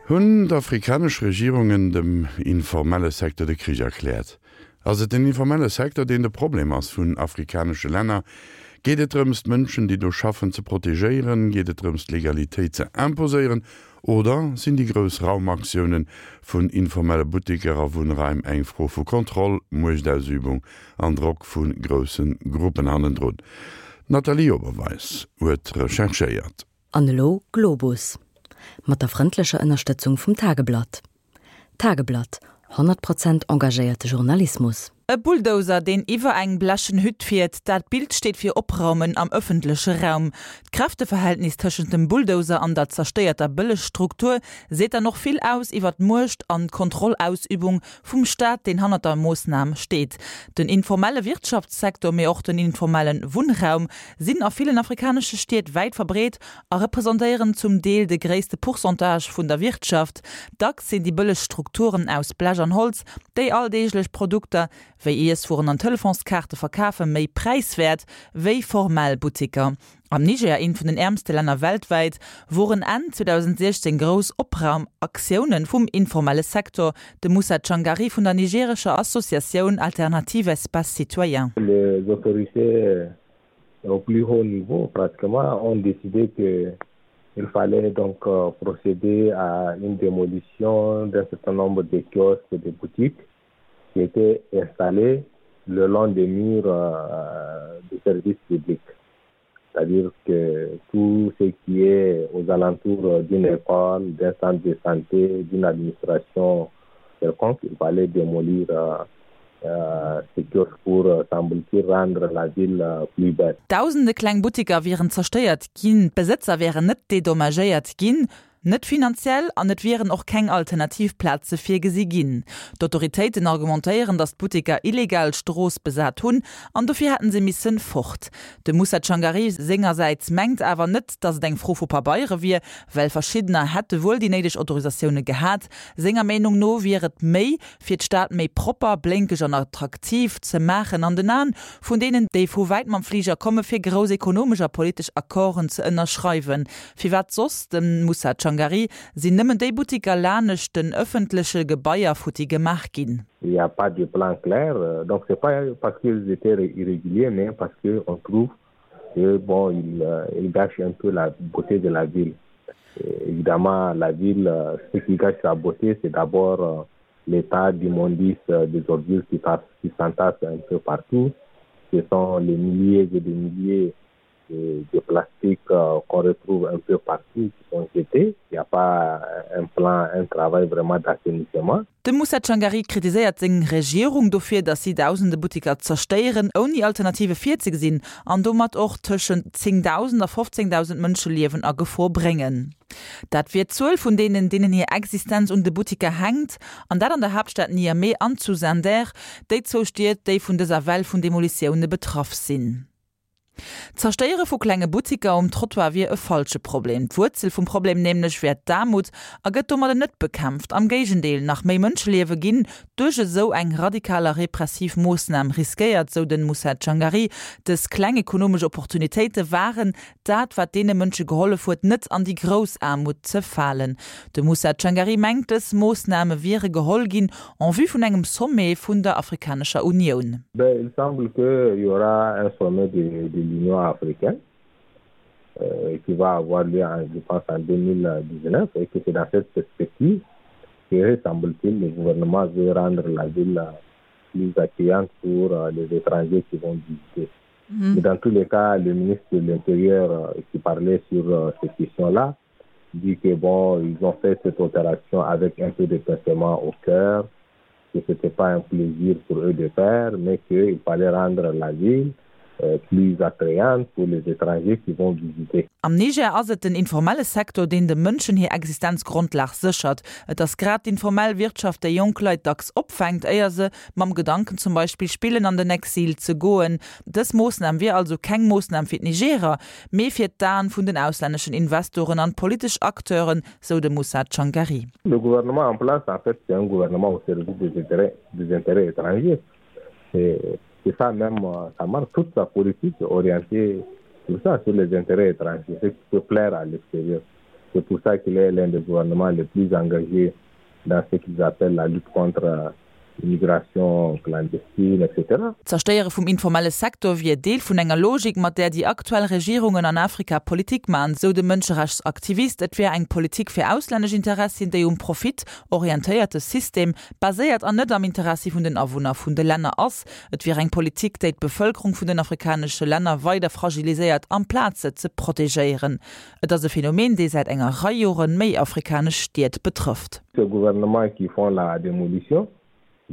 Hunn d'afrikanesch Regierungen dem informelle Secteur de Krich erkläert? Ass et den informelle Secteur, deen de Problem ass vun afrikanesche Länner? Geet et drëms, d'Mënschen, déi do schaffen, ze protegéieren? Geet et drëms, d'Legalitéit ze imposéieren? Oder sinn déi grouss Raumaktioune vun informelle Butteker a Wunnraim eng Fro vu Kontroll, Muechtausübung an Drock vu grousse Gruppen hannendrun? D'Nathalie Oberweis huet recherchéiert. An elo Globus. Mat der frëndlecher Ënnerstëtzung vum Tageblatt. Tageblatt, 100 Prozent engagéierte Journalismus. E Bulldozer, deen iwwer eng blechen Hütt fiert, dat Bild steet fir Opraumen am ëffentleche Raum. D'Kräfteverhältnis tëschent dem Bulldozer an der zerstéierter Bëllegstruktur seet dann och vill aus iwwer d'Muecht an d'Kontrollausübung vum Staat, deen hannert der Moossnam steet. Den informelle Wirtschaftssektor, mee och den informelle Wunnraum sinn a villen afrikanesche Stied wäit verbreet a representéieren zum Deel de gréisste Pourcentage vun der Wirtschaft. Dacks sinn déi bëlleg Strukturen aus Blech an Holz, déi alldeeglech Produkter wéi Iesswueren an Telefonskaarte verkafen, méi präiswäert wéi formell Buttiker. Am Niger, eent vun den äermste Länner weltwäit, woren Enn 2016 grouss Opraumaktioune vum informelle Secteur. De Moussa Tchangari vun der nigerescher Associatioun Alternative Espace Citoyen. Les autorités au plus haut niveau pratiquement ont décidé que il fallait donc euh, procéder à une démolition d'un certain nombre de kiosques et de boutiques qui étaient installés le long des murs euh, du service public. C'est-à-dire que tout ce qui est aux alentours d'une école, d'un centre de santé, d'une administration quelconque, il fallait démolir euh, euh, ce kiosque pour, euh, semble-t-il, rendre la ville euh, plus belle. Dausende kleng Buttiker wieren zerstéiert ginn, d'Besëtzer wären net dedommagéiert ginn. Net finanziell an et wieren och keng alternativ Plaze virgesi ginn. D'Autoritéiten argumentéieren, datt d'Butteker illegal d'Strooss besat hunn an dofir hätten se missen fort. De Moussa Tchangari sengersäits mengt awer net, datt et eng Fro vu Pabeiere wier, well verschiddener hätte wuel déi néideg Autorisatioune gehat. Senger Meenung no wier et méi, fir d'Stad méi propper, blénkeg an attraktiv ze maachen an den Aen vun deenen, déi vu wäit mam Fliger komme fir grouss ekonomesch a politesch Accorden ze ënnerschreiwen. Firwat soss, dem Moussa Tchangari, sinn nëmmen déi Buttiker lanescht den ëffentleche Gebaier futti gemaach ginn? Il y a pas de plan clair, donc c'est pas parce qu'ils étaient irréguliers mais parce que on trouve que bon ils ils gâchent un peu la beauté de la ville. Évidemment la ville ce qui gâche sa beauté c'est d'abord l'état d'immondice des ordures qui qui s'entassent un peu partout, ce sont les milliers et des milliers de, de plastique euh, qu'on retrouve un peu partout qui sont jetés. Il n'y a pas un plan, un travail vraiment d'assainissement. De Moussa Tchangari kritiséiert seng Regierung dofir, datt si dausende Buttiker zerstéieren, ouni Alternative virzegesinn, an domat och tëschent 10.000 a 15.000 Mënscheliewen a Gefor bréngen. Dat wier d'Zuel vun deenen, deenen hir Existenz un de Buttiker hänkt, an dat an der Haaptstad Niamey an zu Zinder, déi zwou Stied, déi vun dëser Well vun Demolitioune betraff sinn. D'Zerstéiere vu klenge Buttiker um Trottoir wier e falsche Problem. D'Wuerzel vum Problem nämlech wär d'Aarmut a gëtt domadder net bekämpft. Am Géigendeel, nach méi Mënscheliewe ginn duerch esou eng radikal a repressiv Moossnam riskéiert, sou den Moussa Tchangari. Dës kleng ekonomesch Opportunitéite waren dat, wat deene Mënsche gehollef huet, net an déi grouss Aarmut ze falen. De Moussa Tchangari mengt, dës Moossname wiere geholl ginn en vue vun engem Sommet vun der Afrikanescher Unioun. Ben, il semble qu'il y aura un sommet de, de l'Union africaine euh, qui va avoir lieu, en, je pense, en 2019 et que c'est dans cette perspective que, semble-t-il, le gouvernement veut rendre la ville plus accueillante pour euh, les étrangers qui vont visiter. Mmh. Mais dans tous les cas, le ministre de l'Intérieur euh, qui parlait sur euh, cette question-là dit que bon, ils ont fait cette opération avec un peu de pincement au cœur, que ce n'était pas un plaisir pour eux de faire, mais qu'il fallait rendre la ville euh, plus attrayante pour les étrangers qui vont visiter. Am Niger ass et den informelle Sektor, deen de Mënschen hir Existenzgrondlag séchert. Et ass grad d'informell Wirtschaft, déi jonk Leit dacks opfänkt, éier se mam Gedanken zum Beispill spillen, an den Exil ze goen. Dës Moossnam wier also keng Moossnam fir d'Nigerer, mee fir d'Aen vun den auslänneschen Investoren an d'politesch Acteuren, sou de Moussa Tchangari. Le gouvernement en place, en fait, c'est un gouvernement au service des intérêts, des intérêts étrangers. C'est ça même, ça marque toute sa politique orientée sur ça, sur les intérêts étrangers, ce qui peut plaire à l'extérieur. C'est pour ça qu'il est l'un des gouvernements les plus engagés dans ce qu'ils appellent la lutte contre l'immigration clandestine, etc. D'Zerstéiere vum informelle Secteur wier Deel vun enger Logik, mat där déi aktuell Regierungen an Afrika Politik man, sou de Mënscherechtsaktivist. Et wär eng Politik fir auslännesch Interessien, déi um Profit orientéierte System baséiert an net am Interessi vun den Awunner vun de Länner ass. Et wier eng Politik, déi d'Bevëlkerung vun den afrikanesche Länner weider fragiliséiert, amplaz se ze protegéieren. Et ass e Phänomen, dee säit enger Rei Joren méi afrikanesch Stied betrëfft. Ces gouvernements qui font la démolition,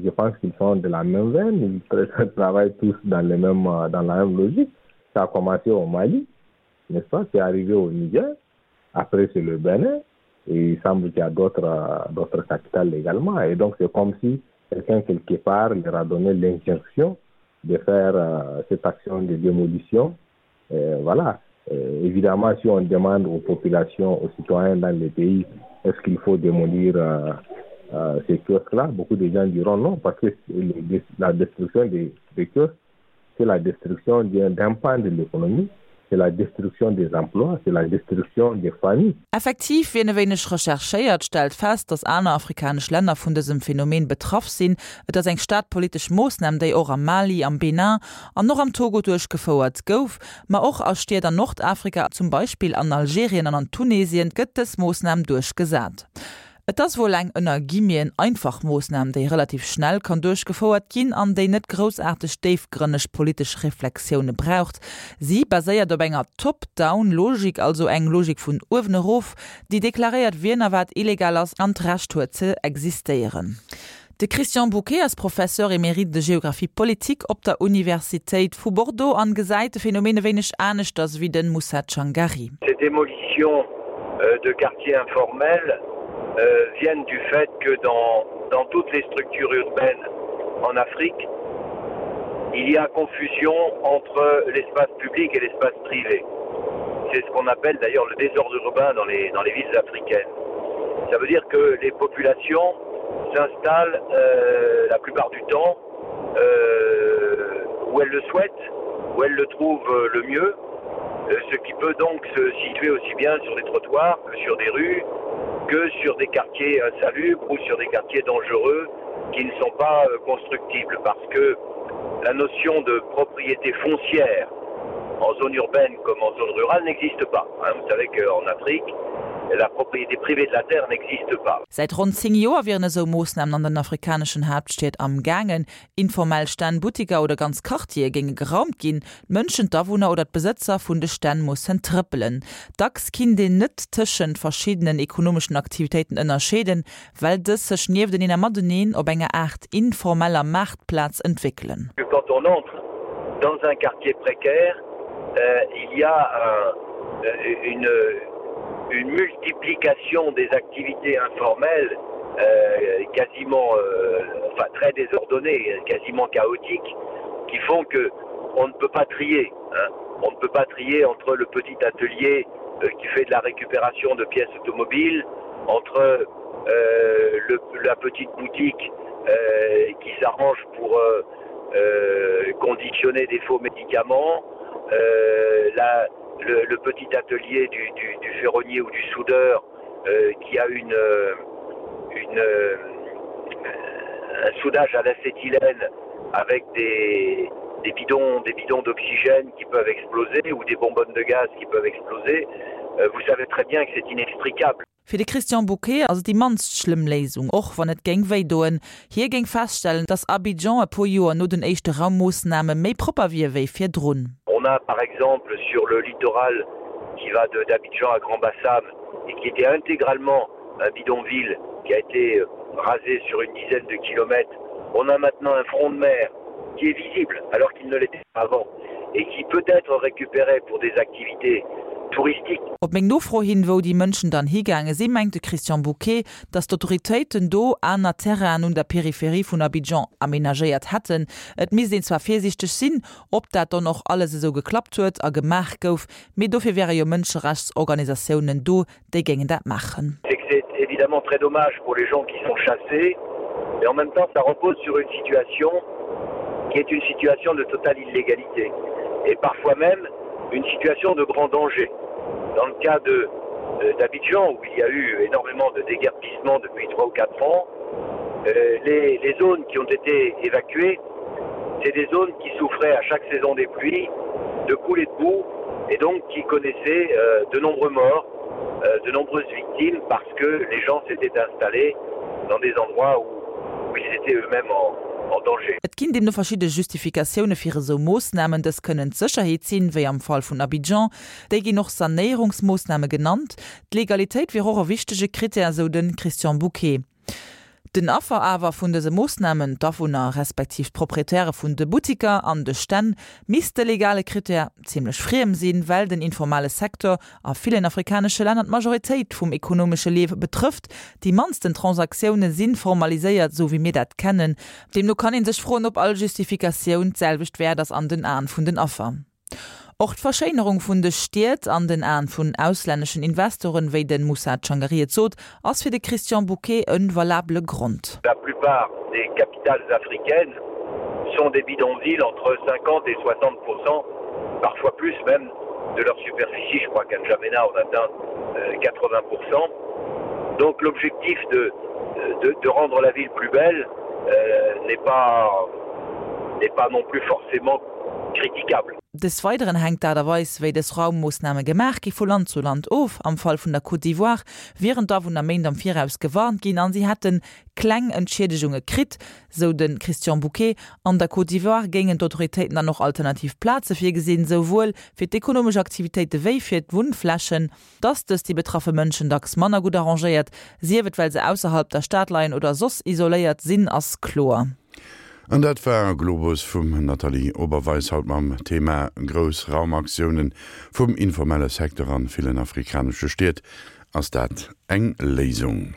je pense qu'ils sont de la même veine, ils travaillent tous dans les mêmes, dans la même logique. Ça a commencé au Mali, n'est-ce pas? C'est arrivé au Niger, après c'est le Bénin, et il semble qu'il y a d'autres d'autres capitales également. Et donc c'est comme si quelqu'un quelque part leur a donné l'injonction de faire euh, cette action de démolition. Euh, voilà. Euh, évidemment, si on demande aux populations, aux citoyens dans les pays, est-ce qu'il faut démolir euh, euh, ces kiosques-là, beaucoup de gens diront non, parce que la destruction des, des kiosques, c'est la destruction d'un pan de l'économie, c'est la destruction des emplois, c'est la destruction des familles. Effektiv, wien e wéineg recherchéiert, stellt fest, datt aner afrikanesch Länner vun dësem Phänomen betraff sinn. Et ass eng staatpolitesch Moossnam, déi och am Mali, am Benin an och am Togo duerchgefouert gouf. Ma och a Stied an Nordafrika, zum Beispill an Algerien an an Tunesien, gëtt dës Moossnam duerchgesat. Et ass wuel eng ënner Guillemeten einfach Moossnam, déi relativ schnell kann duerchgefouert ginn an déi net groussaarteg déifgrënneg politesch Reflexioune braucht. Si baséiert op enger Top-down-Logik, also eng Logik vun uewen erof, déi deklaréiert, wien a wat illegal ass an d'Recht huet ze existéieren. De Christian Bouquet ass Professeur émérite de géographie politique op der Universitéit vu Bordeaux an gesäit de Phänomen e wéineg aneschters wéi de Moussa Tchangari. Ces démolitions de quartiers informels viennent du fait que dans dans toutes les structures urbaines en Afrique, il y a confusion entre l'espace public et l'espace privé. C'est ce qu'on appelle d'ailleurs le désordre urbain dans les, dans les villes africaines. Ça veut dire que les populations s'installent euh, la plupart du temps euh, où elles le souhaitent, où elles le trouvent euh, le mieux, euh, ce qui peut donc se situer aussi bien sur des trottoirs que sur des rues, que sur des quartiers insalubres ou sur des quartiers dangereux qui ne sont pas euh, constructibles parce que la notion de propriété foncière en zone urbaine comme en zone rurale n'existe pas. Hein, vous savez qu'en Afrique, la propriété privée de la terre n'existe pas. Säit ronn 10 Joer wieren esou Moossnamen an den afrikaneschen Haaptstied am gaangen. Informell Stänn, Buttiker oder ganz Quartiere géinge geraumt ginn. D'Mënschen, d'Awunner oder d'Besëtzer vun de Stänn mussen trëppelen. Dacks kinnt een net tëschent verschiddenen ekonomeschen Aktivitéiten ënnerscheeden, well dës sech niefteneen a mateneen op enger Aart informeller Maartplaz entwéckelen. Quand on entre dans un quartier précaire, il y a une une multiplication des activités informelles quasiment enfin très désordonnées, quasiment chaotiques, qui font que on ne peut pas trier hein. On ne peut pas trier entre le petit atelier qui fait de la récupération de pièces automobiles, entre euh, le, la petite boutique euh, qui s'arrange pour euh, euh, conditionner des faux médicaments, euh, la, le, le petit atelier du, du, du ferronnier ou du soudeur euh, qui a une, une, un soudage à l'acétylène avec des, des bidons des bidons d'oxygène qui peuvent exploser ou des bonbonnes de gaz qui peuvent exploser euh, vous savez très bien que c'est inextricable. Fir de Christian Bouquet ass et déi mannst schlëmm Léisung, och wann et géing wéi doen. Hie géing feststellen, datt Abidjan e puer Joer no den éischte Raummoossname méi propper wier wéi virdrun. On a par exemple sur le littoral qui va de d'Abidjan à Grand-Bassam et qui était intégralement un bidonville qui a été rasé sur une dizaine de kilomètres, on a maintenant un front de mer qui est visible alors qu'il ne l'était pas avant et qui peut être récupéré pour des activités touristiques. Op meng Nofro hin, wou déi Mënschen dann higaange sinn, mengt de Christian Bouquet, datt d'Autoritéiten do aner Terrainen un der Peripherie vun Abidjan amenagéiert hätten. Et misst een zwar virsiichteg sinn, ob dat dann och alles esou geklappt huet a gemaach gouf, mee dofir wäre jo Mënscherechtsorganisatiounen do, déi géingen dat maachen. C'est que c'est évidemment très dommage pour les gens qui sont chassés, mais en même temps ça repose sur une situation qui est une situation de totale illégalité et parfois même une situation de grand danger. Dans le cas de. euh, d'Abidjan où il y a eu énormément de déguerpissements depuis trois ou quatre ans, euh, les, les zones qui ont été évacuées, c'est des zones qui souffraient à chaque saison des pluies de coulées de boue et donc qui connaissaient euh, de nombreux morts, euh, de nombreuses victimes parce que les gens s'étaient installés dans des endroits où, où ils étaient eux-mêmes en, en danger. Et ginn deemno verschidde Justifikatioune fir esou Moossnamen. Dës kënnen d'Sécherheet sinn, wéi am Fall vun Abidjan. Déi ginn och Sanéierungsmoossname genannt. D'Legalitéit wier och e wichtege Krittär, esou de Christian Bouquet. Den Affer awer vun dëse Moossnamen, d'Awunner respektiv d'Proprietäre vun de Buttiker an de Stänn, misst de legale Krittär zimmlech friem sinn, well den informale Secteur a villen afrikanesche Länner d'Majoritéit vum ekonomesche Liewe betrëfft. Déi mannsten Transaktioune si formaliséiert, esou wéi mir dat kennen. Deemno kann ee sech froen, ob all Justifikatioun d'selwecht wäert ass an den Aen vun den Affer. Och d'Verschéinerung vun de Stied an den Aen vun auslänneschen Investoren, wéi de Moussa Tchangari et sot, ass fir de Christian Bouquet e valabele Grond. La plupart des capitales africaines sont des bidonvilles entre 50 et 60 parfois plus même de leur superficie. Je crois qu'à N'Djamena on atteint 80 Donc l'objectif de, de, de rendre la ville plus belle euh, n'est pas, n'est pas non plus forcément critiquable. Des Weideren hänkt d'Aart a Weis, wéi dës Raummoossname gemaach gi vu Land zu Land of. Am Fall vun der Côte d'Ivoire wieren d'Awunner Méint am Viraus gewarnt ginn an si hätte kleng Entschiedegunge kritt, sou de Christian Bouquet. An der Côte d'Ivoire géingen d'Autoritéiten dann och alternativ Plaze virgesinn, souwuel fir d'ekonomesch Aktivitéite wéi fir d'Wunnflächen. Dass dës déi betraffe Mënschen dacks manner gutt arrangéiert, sief et well se ausserhalb der Stad leien oder soss isoléiert sinn, ass kloer. An dat war Globus vum Nathalie Oberweis, haut mam Thema Grouss Raumaktiounen vum informelle Secteur an villen afrikanesche Stied. Ass dat eng Léisung?